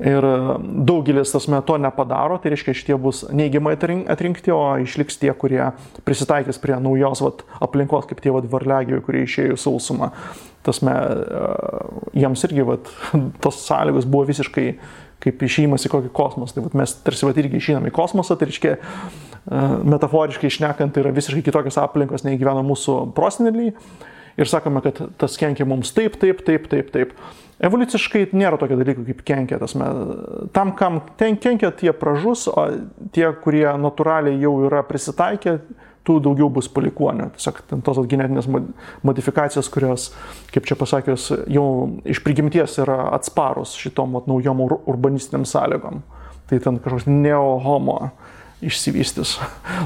Ir daugelis to nepadaro, tai reiškia, šitie bus neigiamai atrinkti, o išliks tie, kurie prisitaikys prie naujos aplinkos, kaip tie varliagyviai, kurie išėjo į sausumą. Jiems irgi tos sąlygos buvo visiškai kaip išėjimas į kokį kosmosą. Tai mes tarsi irgi išeinam į kosmosą, tai reiškia, metaforiškai šnekant, tai yra visiškai kitokios aplinkos, nei gyvena mūsų proseneliai. Ir sakome, kad tas kenkia mums taip. Evoliuciškai nėra tokio dalyko kaip kenkia. Tam, kam ten kenkia, tie pražus, o tie, kurie natūraliai jau yra prisitaikę, tų daugiau bus palikuonių. Tiesiog tos genetinės modifikacijos, kurios, kaip čia pasakius, jau iš prigimties yra atsparus šitom naujom urbanistiniam sąlygom. Tai ten kažkoks neo-homo išsivystys.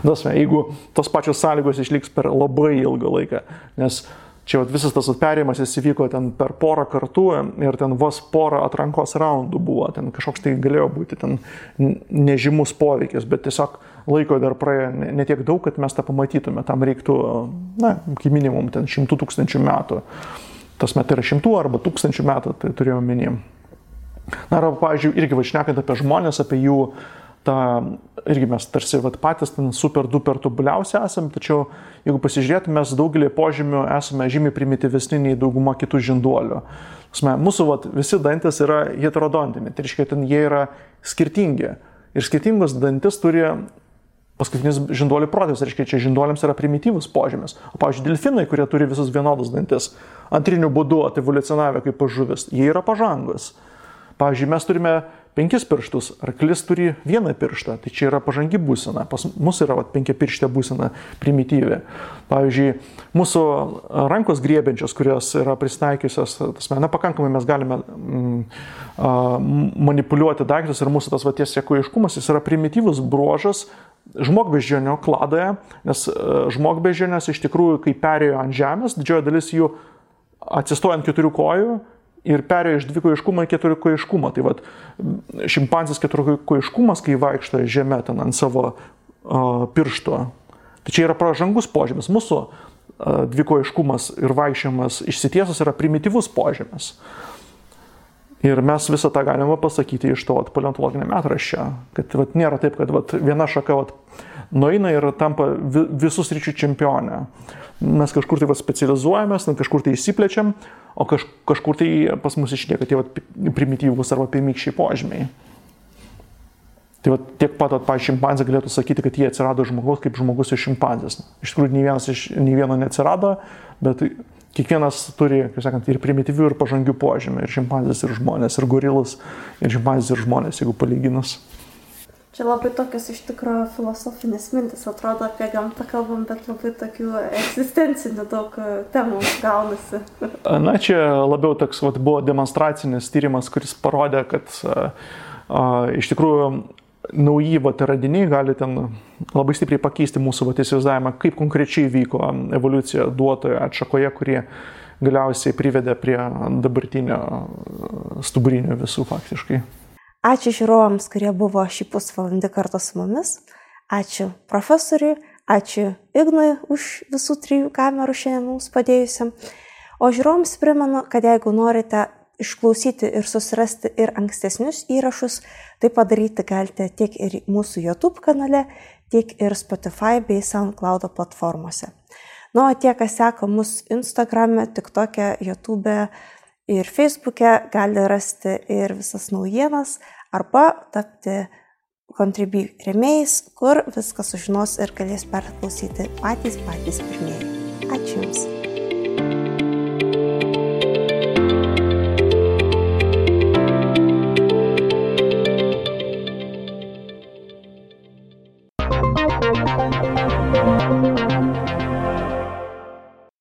Jeigu tos pačios sąlygos išliks per labai ilgą laiką, nes čia visas tas perėjimas įvyko ten per porą kartų ir ten vos porą atrankos raundų buvo, ten kažkoks tai galėjo būti ten nežymus poveikis, bet tiesiog laiko dar praėjo ne tiek daug, kad mes tą pamatytume, tam reiktų, kaip minimum, ten 100 000 metų. Tas metai yra 100 arba 1000 metų, tai turėjau minimum. Arba, pavyzdžiui, irgi šnekant apie žmonės, apie jų irgi mes tarsi patys ten super duper tobuliausi esame, tačiau jeigu pasižiūrėtume, mes daugelį požymių esame žymiai primityvesni nei dauguma kitų žinduolių. Mūsų visi dantis yra heterodontiniai, tai reiškia, ten jie yra skirtingi. Ir skirtingus dantis turi paskutinis žinduolių protėvis, reiškia, čia žinduoliams yra primityvus požymis. O pavyzdžiui, delfinai, kurie turi visus vienodus dantis, antriniu būdu evoliucionavę kaip žuvis, jie yra pažangus. Pavyzdžiui, mes turime 5 pirštus, arklis turi 1 pirštą, tai čia yra pažangi būsena. Pas mus yra 5 pirštė būsena primityvi. Pavyzdžiui, mūsų rankos griebiančios, kurios yra prisitaikiusios, pakankamai mes galime manipuliuoti daiktus ir mūsų tas tiesiakojiškumas, jis yra primityvus bruožas žmogbeždžionio kladoje, nes žmogbeždžionės iš tikrųjų, kai perėjo ant žemės, didžioji dalis jų atsistoja ant 4 kojų, ir perėjo iš 2-kojiškumo į 4-kojiškumą. Tai šimpanzės 4-kojiškumas, kai vaikšto žemė ten ant savo piršto. Tai čia yra pažangus požymis. Mūsų 2-kojiškumas ir vaikščiojimas išsitiesus yra primityvus požymis. Ir mes visą tą galime pasakyti iš to paleontologinio metraščio. Kad nėra taip, kad viena šaka nueina ir tampa visų sričių čempionė. Mes kažkur tai specializuojamės, kažkur tai įsiplečiam, o kažkur tai pas mus išlieka tie primityvūs arba pirmykščiai požymiai. Tai tiek pat, pavyzdžiui, šimpanzė galėtų sakyti, kad jie atsirado žmogaus kaip žmogus iš šimpanzės. Iš tikrųjų, nei vieno neatsirado, bet kiekvienas turi, kaip sakant, ir primityvių, ir pažangių požymių. Ir šimpanzės, ir žmonės, ir gorilas, ir šimpanzės, ir žmonės, jeigu palyginus. Čia labai tokios iš tikrųjų filosofinės mintis, atrodo apie gamtą kalbam, bet labai tokių egzistencinių daug temų gaunasi. Na, čia labiau toks buvo demonstracinis tyrimas, kuris parodė, kad iš tikrųjų nauji radiniai gali ten labai stipriai pakeisti mūsų įsivaizdavimą, kaip konkrečiai vyko evoliucija duotoje atšakoje, kurie galiausiai privedė prie dabartinio stuburinio visų faktiškai. Ačiū žiūrovams, kurie buvo šį pusvalandį kartu su mumis. Ačiū profesoriui, ačiū Ignui už visų 3 kamerų šiandien mums padėjusiam. O žiūrovams primenu, kad jeigu norite išklausyti ir susirasti ir ankstesnius įrašus, tai padaryti galite tiek ir mūsų YouTube kanale, tiek ir Spotify bei SoundCloud platformose. O tie, kas seka mus Instagrame, TikTok'e, YouTube'e ir Facebook'e, gali rasti ir visas naujienas arba tapti Contribui rėmėjais, kur viską sužinos ir galės perklausyti patys pirmieji. Ačiū Jums.